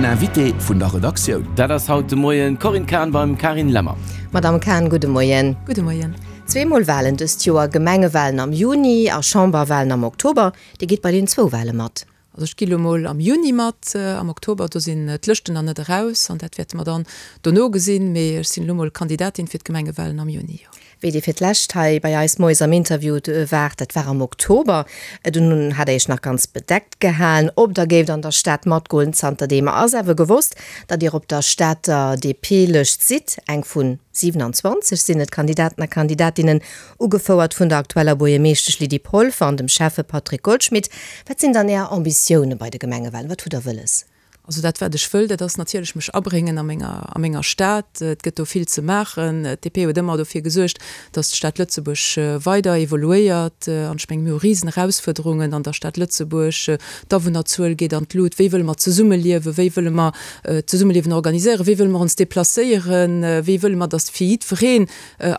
Invité vun der Redaktioun. Dat ass haut de Moien d'Corinne Cahen beim Carine Lemmer. Madamm Cahen, gudde Moien. Gudde Moien. Zweemol Walen dëst Joer, Gemengewalen am Juni a Chamberwalen am Oktober. Dir gitt bei den zwou Wale mat? Also ech gi lo mol am Juni mat, am Oktober do sinn d'Lëschten nach net eraus an dat wäerte mer dann dono gesinn, mee ech sinn elo mol Kandidatin fir d'Gemengewalen am Juni, jo. Wéi Dir fir d'lescht hei bei eis moies am Interview waart, dat war am Oktober, dunn hat Der Iech nach ganz bedeckt gehalen, ob Der géift an der Stad matgoen. Zanterdeem ass awer gewosst, datt Dir op der Stater DP-Lëscht sidd, eng vu 27 sinn et Kandidaten a Kandidatinnen, Ugefouert vun der aktueller Buergermeeschtesch Lydie Polfer an dem Schäffe Patrick Goldschmidt. Wat sinn dann Är Ambitioune bei de Gemengewalen? Wat hutt Der wëlles? Also dat wat ech wëll, dat ass natierlech mech abréngen a menger, a menger Stad. Et gëtt do vill ze maachen. D'DP huet ëmmer dofir gesuergt, datt d'Stad Lëtzebuerg weider evoluéiert. An ech mengen, mir hu risen Erausfuerderungen an der Stad Lëtzebuerg. D'Awunnerzuel geet an d'Lut. Wéi wëlle mer zesummeliewen? Wéi wëlle mer d'Zesummeliewen organiséieren? Wéi wëlle mer ons deplacéieren? Wéi wëlle mer, datt fir jiddwereen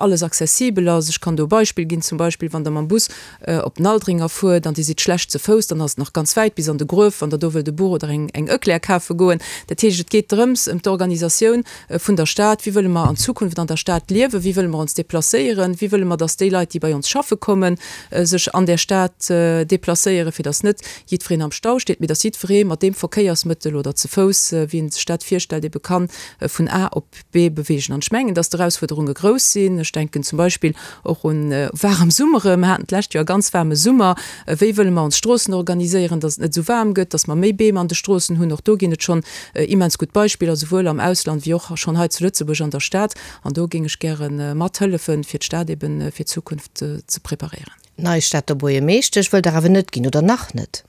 alles accessibel ass. Ech kann do e Beispill ginn, zum Beispill wann Der mam Bus op den Aldringer fuert an Dir sidd schlecht ze Fouss, dann ass et nach ganz wäit bis an de Gruef, wann Der do wëllt e Buch oder eng eng Eclair kafe goen. Dat heescht, et geet drëms, ëm d'Organisatioun vun der Stad. Wéi wëlle mer an Zukunft an der Stad liewen? Wéi wëlle mer ons deplacéieren? Wéi wëlle mer, dass déi Leit, déi bei ons schaffe kommen, sech an där Stad deplacéieren, fir dass net jiddwereen am Stau steet, mee dass jiddweree mat deem Verkéiersmëttel oder ze Fouss, wéi en sech dat virstellt, ebe kann vun A op B beweegen. An ech mengen, dass d'Erausfuerderunge grouss sinn. Ech denken zum Beispill och un waarem Summere. Mer haten d'lescht Joer e ganz waarme Summer. Wéi wëlle mer ons Stroossen organiséieren, dass et net esou waarm gëtt, dass mer méi Beem an de Stroossen hunn? Och do ginn et schonn immens gutt Beispiller, souwuel am Ausland wéi och schonn hei zu Lëtzebuerg an der Stad. An do géing ech gäre mathëllefen, fir d'Stad ebe fir d'Zukunft ze preparéieren. Nei Stater Buergermeeschtesch wëllt Der awer net ginn, oder nach net?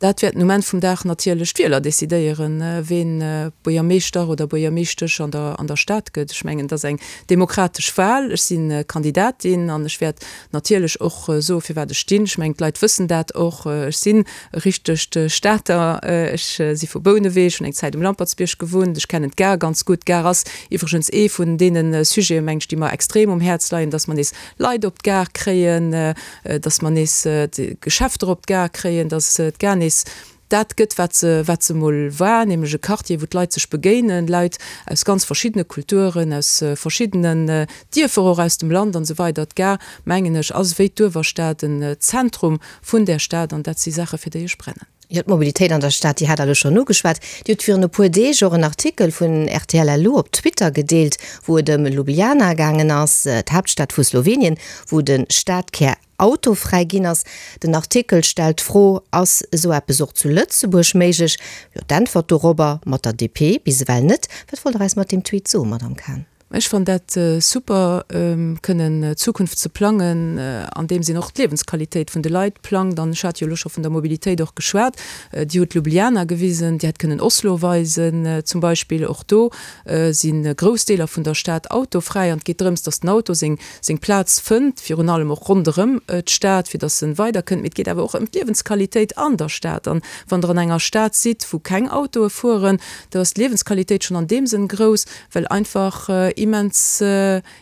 Dat wäerten um Enn vum Dag natierlech d'Wieler decidéieren, ween Buergermeeschter oder Buergermeeschtesch an der an der Stad gëtt. Ech mengen, et ass eng demokratesch Wahl. Ech si Kandidatin an ech wäert natierlech och soe firwat ech stinn. Ech mengen, d'Leit wëssen dat och. Ech sinn e richtegt Stater. Ech si vu Bouneweg, hunn eng Zäit um Lampertsbierg gewunnt. Ech kennen d'Gare ganz gutt. D'Gare ass iwwregens ee vun deene Sujeten, meng ech, déi mer extrem um Häerz leien, dass mer nees Leit op d'Gare kréien, dass mer nees d'Geschäfter op d'Gare kréien, dass d'Gare nees dat gëtt, wat se, wat se emol war, nämlech e Quartier, wou d'Leit sech begéinen, Leit aus ganz verschiddene Kulturen, aus verschiddenen Dierfer och aus dem Land an esou weider. D'Gare, mengen ech, ass wéi d'Uewerstad en Zentrum vun där Stad an dat si Saache fir déi ech brennen. Jo, d'Mobilitéit an der Stad, déi hat Der elo schonn ugeschwat. Dir hutt virun e puer Deeg och en Artikel vun rtl LU op Twitter gedeelt, wou et ëm Ljubljana gaangen ass, d'Haaptstad vu Slowenien, wou de Stadkär autofräi ginn ass. Den Artikel stellt d'Fro, Ass esou eppes och zu Lëtzebuerg méiglech? Jo, d'Äntwert dorobber, mat der DP bis ewell net. Wat wollt Der eis mat deem Tweet soen, Madamm Cahen? Ech fannen dat super, kënnen d'Zukunft ze plangen, andeems een och d'Liewensqualitéit vun de Leit plangt. An ech hat jo elo scho vun der Mobilitéit och geschwat. Dir hutt Ljubljana gewisen, Dir hätt kënnen Oslo weisen zum Beispill. Och do si grouss Deeler vun der Stad autofräi. An et geet drëms, datt den Auto seng seng Plaz fënnt, virun allem och ronderëm d'Stad, fir datt en weiderkënnt. Mee et geet awer och ëm d'Liewensqualitéit an der Stad. An wann Der an enger Stad sidd, wou keng Autoe fueren, do ass d'Liewensqualitéit schonn an deem Sënn grouss, well einfach immens,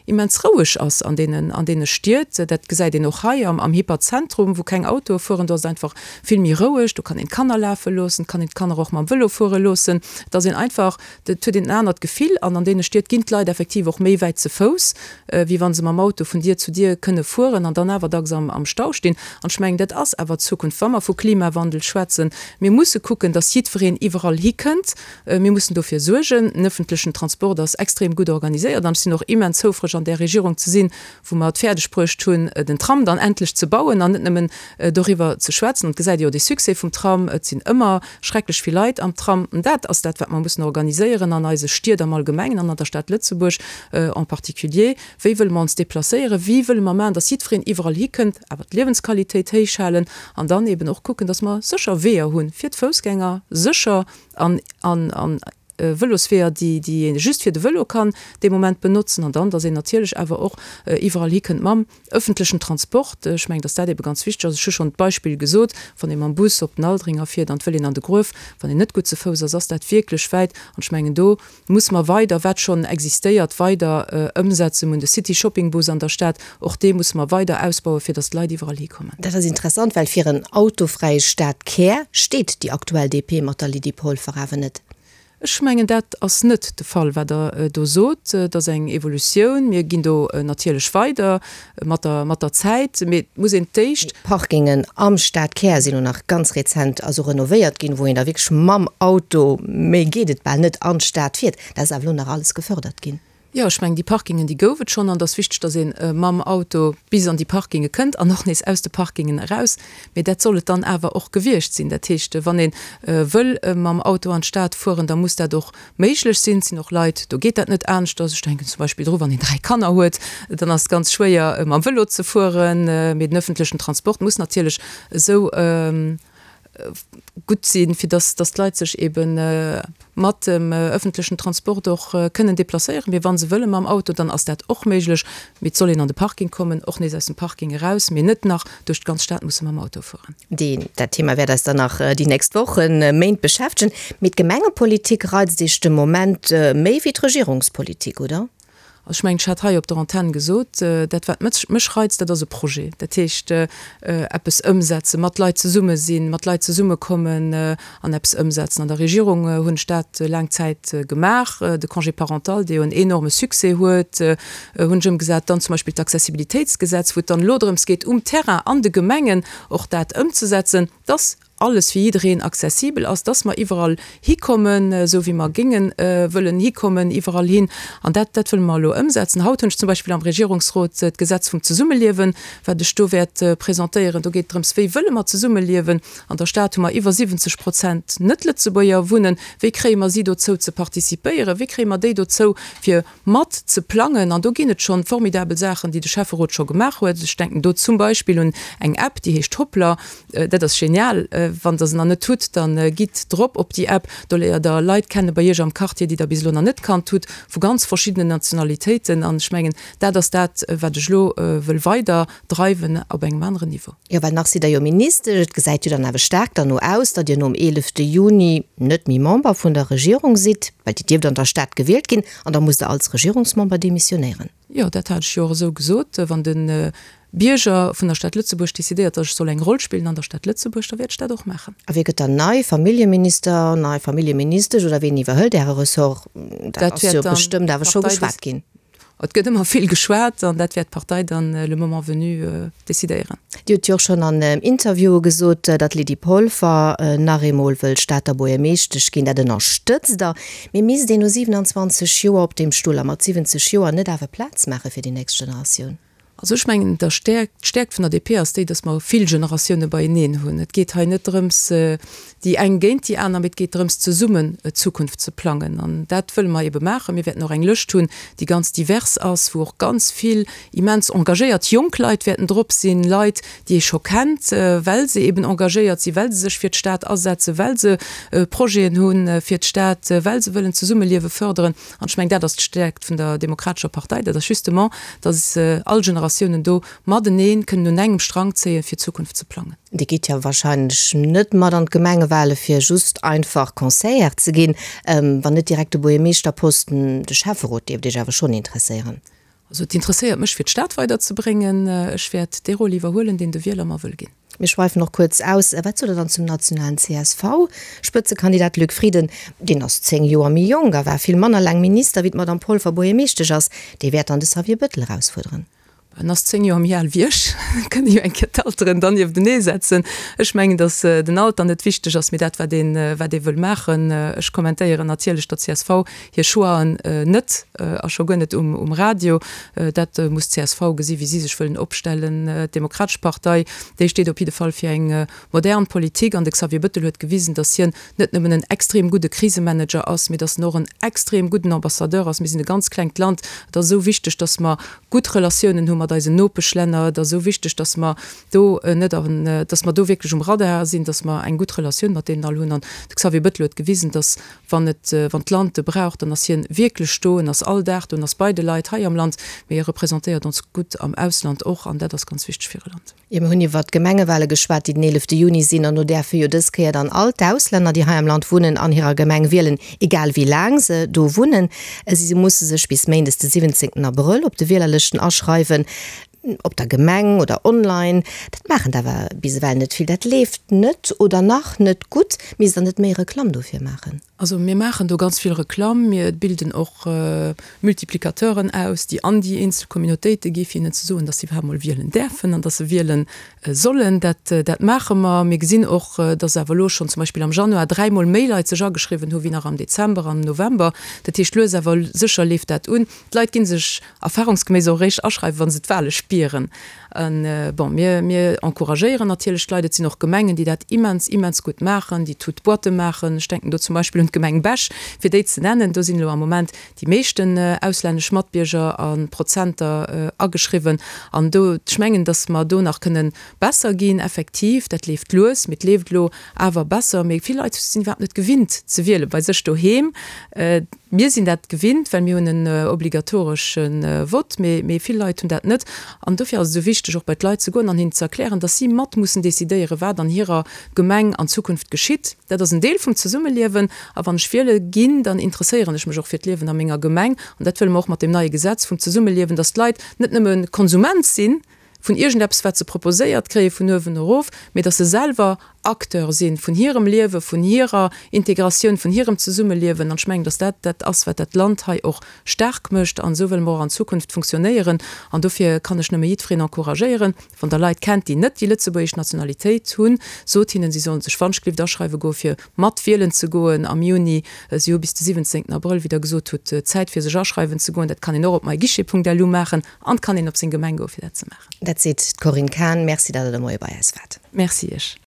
immens roueg ass an deenen, an deene Stied. Dat gesäit een och hei am, am Hyperzentrum, wou keng Autoe fueren. Do ass et einfach vill méi roueg. Do kann een d'Kanner lafe loossen, et kann een d'Kanner och mam Vëlo fuere loossen. Et ass een einfach, et huet een en anert Gefill. An an deene Stied ginn d'Leit effektiv och méi wäit ze Fouss, wéi wa se mam Auto vun Dier zu Dier kënne fueren an dann awer dacks am, am Stau stinn. An ech mengen, dat ass awer d'Zukunft, wa mer vu Klimawandel schwätzen. Mir musse kucken, dass jiddwereen iwwerall hikënnt. Mir mussen dofir suergen. Den öffentlechen Transport ass extrem gutt organiséiert an ech sinn och immens houfreg an där Regierung ze sinn, wou mer et fäerdeg bruecht hunn, den Tram dann endlech ze bauen an net nëmmen doriwwer ze schwätzen. An et gesäit ee jo de Succès vum Tram, et sinn ëmmer schrecklech vill Leit am Tram. An dat ass dat, wat mer mussen organiséieren an eise Stied am Allgemengen an an der Stad Lëtzebuerg en particulier. Wéi wëlle mer ons déplacéieren? Wéi wëlle mer maachen, dass jiddwereen iwwerall hikënnt, awer d'Liewensqualitéit héich halen an dann eben och kucken, dass mer sécher Weeër hu fir d'Foussgänger, sécher an an Vëlosweeër, déi déi ee just fir de Vëlo kann dee Moment benotzen an dann, dass een natierlech awer och iwwerall hikënnt mam ëffentlechen Transport. Ech mengen, dass dat ebe ganz wichteg ass. Ech hu schonn d'Beispill gesot, wann ee mam Bus op den Aldringer fiert an et wëll een an de Gruef, wann een net gutt ze Fouss ass, ass dat wierklech wäit. An ech mengen, do Musse mer weider, wat schonn existéiert, weider ëmsetzen. Mir hunn de City Shopping Bus an der Stad, och dee musse mer weider ausbauen, fir datt d'Leit iwwerall hikommen. Dat ass interessant, well fir en autofräie Stadkär steet déi aktuell DP mat der Lydie Polfer awer net. Ech mengen, dat ass net de Fall, wat Der do sot. Et ass eng Evolutioun. Mir ginn do natierlech weider mat der, mat der Zäit. Mee et muss een d'éischt. D'Parkingen am Stadkär sinn elo nach ganz rezent also renovéiert ginn, wou een da wierklech mam Auto, méi geet et bal net, an d'Stad fiert. Dat ass awer elo nach alles gefördert ginn. Jo, ech mengen, déi Parkingen, déi gouf et schonn. An et ass wichteg, dass ee mam Auto bis an déi Parkinge kënnt an och nees aus de Parkingen eraus. Mee dat soll et dann awer och gewiescht sinn. Dat heescht, wann ee wëll mam Auto an d'Stad fueren, da muss dat och méiglech sinn. Et sinn och Leit, do geet dat net aneschters. Ech denken zum Beispill dru wann een 3 Kanner huet, dann ass et ganz schwéier mam Vëlo ze fueren. Mee den öffentlechen Transport muss natierlech esou gutt sinn, fir dass dass d'Leit sech ebe mat dem öffentlechen Transport och kënnen deplacéieren. Mee wa se wëlle mam Auto, dann ass dat och méiglech. Mee et soll een an de Parking kommen, och nees aus dem Parking eraus, mee net nach duerch d'ganz Stad musse mam Auto fueren. Deen, dat Thema wäert eis dann nach déi nächst Wochen, Méint beschäftegen. Mee d'Gemengepolitik reizt Iech de Moment méi wéi d'Regierungspolitik, oder? Also ech mengen, ech hat hei op der Antenn gesot, dat wat mech reizt, dat ass e Projet. Dat heescht, eppes ëmsetzen, mat Leit zesumme sinn, mat Leit zesummekommen an eppes ëmsetzen. An der Regierung hunn ech dat laang Zäit gemaach. De Congé parental, dee jo en enorme Succès huet, hunn ech ëmgesat. Dann zum Beispill d'Accessibilitéitsgesetz, wou et dann elo drëms geet, um Terrain an de Gemengen och dat ëmzesetzen, dass alles fir jiddereen accessibel ass, dass mer iwwerall hikommen, esou wéi mer géinge wëllen hikommen, iwwerall hin. An dat, dat wëlle mer elo ëmsetzen. Haut hunn ech zum Beispill am Regierungsrot d'Gesetz vum Zesummeliewen, wat ech do wäert presentéieren. Do geet et drëms, wéi wëlle mer zesummeliewen. An der Stad hu mer iwwer 70 Prozent Net-Lëtzebuerger wunnen. Wéi kréie mer si dozou ze participéieren? Wéi kréie mer déi dozou, fir mat ze plangen? An do ginn et schonn formidabel Saachen, déi de Schäfferot scho gemaach huet. Ech denken do zum Beispill un eng App, déi heescht Hoplr. Dat ass genial. Wann der se nach net hutt, da gitt drop op déi App. Do léiert der Leit kenne bei iech am Quartier, déi der bis elo nach net kannt hutt, vu ganz verschiddenen Nationalitéiten. An ech mengen, dat ass dat, wat ech elo wëll weider dreiwen op engem aneren Niveau. Jo, well nach sidd Der jo Ministesch. Et gesäit jo dann awer staark derno aus, datt Dir nom 11 Juni net méi Member vun der Regierung sidd, well Dir dierft an der Stad gewielt ginn an da musst Der als Regierungsmember demissionéieren. Jo, dat hat ech jo och esou gesot. Wann de Bierger vun der Stad Lëtzebuerg decidéiert, datt ech soll eng Roll spillen an der Stad Lëtzebuerg, da wäert ech dat och maachen. A wie gëtt dann nei Familljeminister, nei Familljeministesch oder ween iwwerhëlt Äre Ressort? Dat ass jo bestëmmt awer scho geschwat ginn. Et gëtt ëmmer vill geschwat an dat wäert d'Partei dann le moment venu decidéieren. Dir hutt jo och schonn an Interviewe gesot, datt d'Lydie Polfer nach eemol wëll Stater Buergermeeschtesch ginn. Dat ënnerstëtzt Der. Mee misst een no 27 Joer op deem Stull a mat 70 Joer net awer Plaz maache fir déi nächst Generatioun? Also ech mengen, der Stäerkt, d'Stäerkt vun der DP ass déi, datt mer vill Generatioune beieneen hunn. Et geet hei net drëms, déi eng géint déi aner, mee et geet drëms, zesummen d'Zukunft ze plangen. An dat wëlle mer ebe maachen. Mir wäerten och eng Lëscht hunn, déi ganz divers ass, wou och ganz vill immens engagéiert jonk Leit wäerten drop sinn, Leit, déi ee scho kennt, well se eben engagéiert sinn, well se sech fir d'Stad asetzen, well se Projeten hu fir d'Stad, well se wëllen d'Zesummeliewe fërderen. An ech mengen, dat ass d'Stäerkt vun der Demokratescher Partei, dat ass justement, datt all Generatiounen do matenee kënnen un engem Strang zéien, fir d'Zukunft ze plangen. Dir gitt jo wahrscheinlech net mat an d'Gemengewale fir just einfach Conseillère ze ginn, wann net direkt de Buergermeeschterposten. De Schäfferot dierft Iech awer schonn interesséieren. Also et interesséiert mech fir d'Stad weiderzebréngen. Ech wäert dee Rôle iwwerhuelen, deen de Wieler mer wëll ginn. Mir schweifen och kuerz aus. Wat sot Der dann zum nationalen CSV-Spëtzekandidat Luc Frieden? Deen ass 10 Joer méi jonk a war vill manner laang Minister wéi d'Madame Polfer Buergermeeschtesch ass. Dee wäert dann de Xavier Bettel erausfuerderen. En ass 10 Joer méi al wéi ech. Kënne jo eng Kéier d'Alteren dann nieftenee setzen. Ech mengen, datt den Alter net wichteg ass, mee dat wat een, wat ee wëll maachen. Ech kommentéieren natierlech der csv hir Choixen net a scho guer net um Radio. Dat muss d'CSV gesi wéi si sech wëllen opstellen. D'Demokratesch Partei, déi steet op jidde Fall fir eng modern Politik an de Xavier Bettel huet gewisen, datt hien net nëmmen en extrem gudde Krisemanager ass, mee datt en och en extrem gudden Ambassadeur ass. Mir sinn e ganz klengt Land. Et ass esou wichteg, datt mer gutt Relatiounen hu mat eisen Nopeschlänner. Et ass esou wichteg, datt mer do net an, datt mer do wierklech um Radar sinn, datt mer eng gutt Relatioun mat deenen all hunn. An de Xavier Bettel huet gewisen, datt Wann et, wann d'Land e brauch, dann ass hien wierklech do, en ass all Dag do, en ass bei de Leit hei am Land, mee e representéiert ons gutt am Ausland och an dat ass ganz wichteg fir e Land. Jo, mir hunn iwwert d'Gemengewale geschwat, déi den 11 Juni sinn an do däerfe jo dës Kéier dann all d'Auslänner, déi hei am Land wunnen, an hirer Gemeng wielen, egal wéi laang se do wunnen. Si musse sech bis méindes de 17 Abrëll op de Wielerlëschten aschreiwen. Op der Gemeng oder online. Dat maachen der awer bis ewell net vill. Dat leeft net oder nach net gutt. Misst der net méi Reklamm dofir maachen? Also mir maachen do ganz vill Reklamm. Mir bilden och Multiplicateuren aus, déi an déi eenzel Communautéite gi fir hinnen ze soen, datt se iwwerhaapt mol wielen däerfen an datt se wiele sollen. Dat, dat maache mer. Mir gesinn och, datt awer elo schonn zum Beispill am Januar dräimol méi Leit sech ageschriwwen hu wéi nach am Dezember an am November. Dat heescht, lues awer sécher leeft dat un. D'Leit gi sech erfahrungsgeméiss och eréischt aschreiwen, wa se d'Wahle spieren. Bon, mir, mir encouragéieren natierlech d'Leit. Et sinn och Gemengen, déi dat immens, immens gutt maachen, déi toutes boîtes maachen. Ech denken do zum Beispill un d'Gemeng Bech, fir déi ze nennen. Do sinn elo am Moment déi meeschten auslännesch Matbierger a Prozenter ageschriwwen. An do, ech mengen, datt mer do nach kënnen besser ginn, effektiv. Dat leeft lues, mee et leeft elo awer besser. Mee vill Leit sinn iwwerhaapt net gewinnt ze wielen bei sech doheem. Mir sinn dat gewinnt, well mir hunn en obligatoresche Vott, mee vill Leit hunn dat net. An dofir ass et esou wichteg, och bei d'Leit ze goen an hinnen ze erklären, dass si mat mussen decidéieren, wat an hirer Gemeng an Zukunft geschitt. Dat ass en Deel vum Zesummeliewen. A wann ech wiele ginn, dann interesséieren ech mech och fir d'Liewen a menger Gemeng. An dat wëlle mer och mat deem neie Gesetz vum Zesummeliewen, dass d'Leit net nëmme Konsument sinn vun iergendeppes, wat se proposéiert kréie vun uewen erof, mee dass se selwer Acteur si vun hirem Liewen, vun hirer Integratioun, vun hirem Zesummeliewen. An ech mengen, dass dat dat ass, wat dat Land hei och staark mécht. An esou wëlle mer och an Zukunft funktionéieren. An dofir kann ech nëmme jiddwereen encouragéieren, Wann Der Leit kennt, déi net déi lëtzebuergesch Nationalitéit hunn, sot hinnen, si sollen sech wannschglift aschreiwe goen, fir mat wielen ze goen am Juni. Si hu bis de 17 Abrëll, wéi Der gesot hutt, Zäit, fir sech aschreiwen ze goen. Dat kann een och op myguichet.lu maachen an et kann een op seng Gemeng goen, fir dat ze maachen. Dat seet d'Corinne Cahen. Merci, datt Der de Moie bei eis waart. Merci Iech.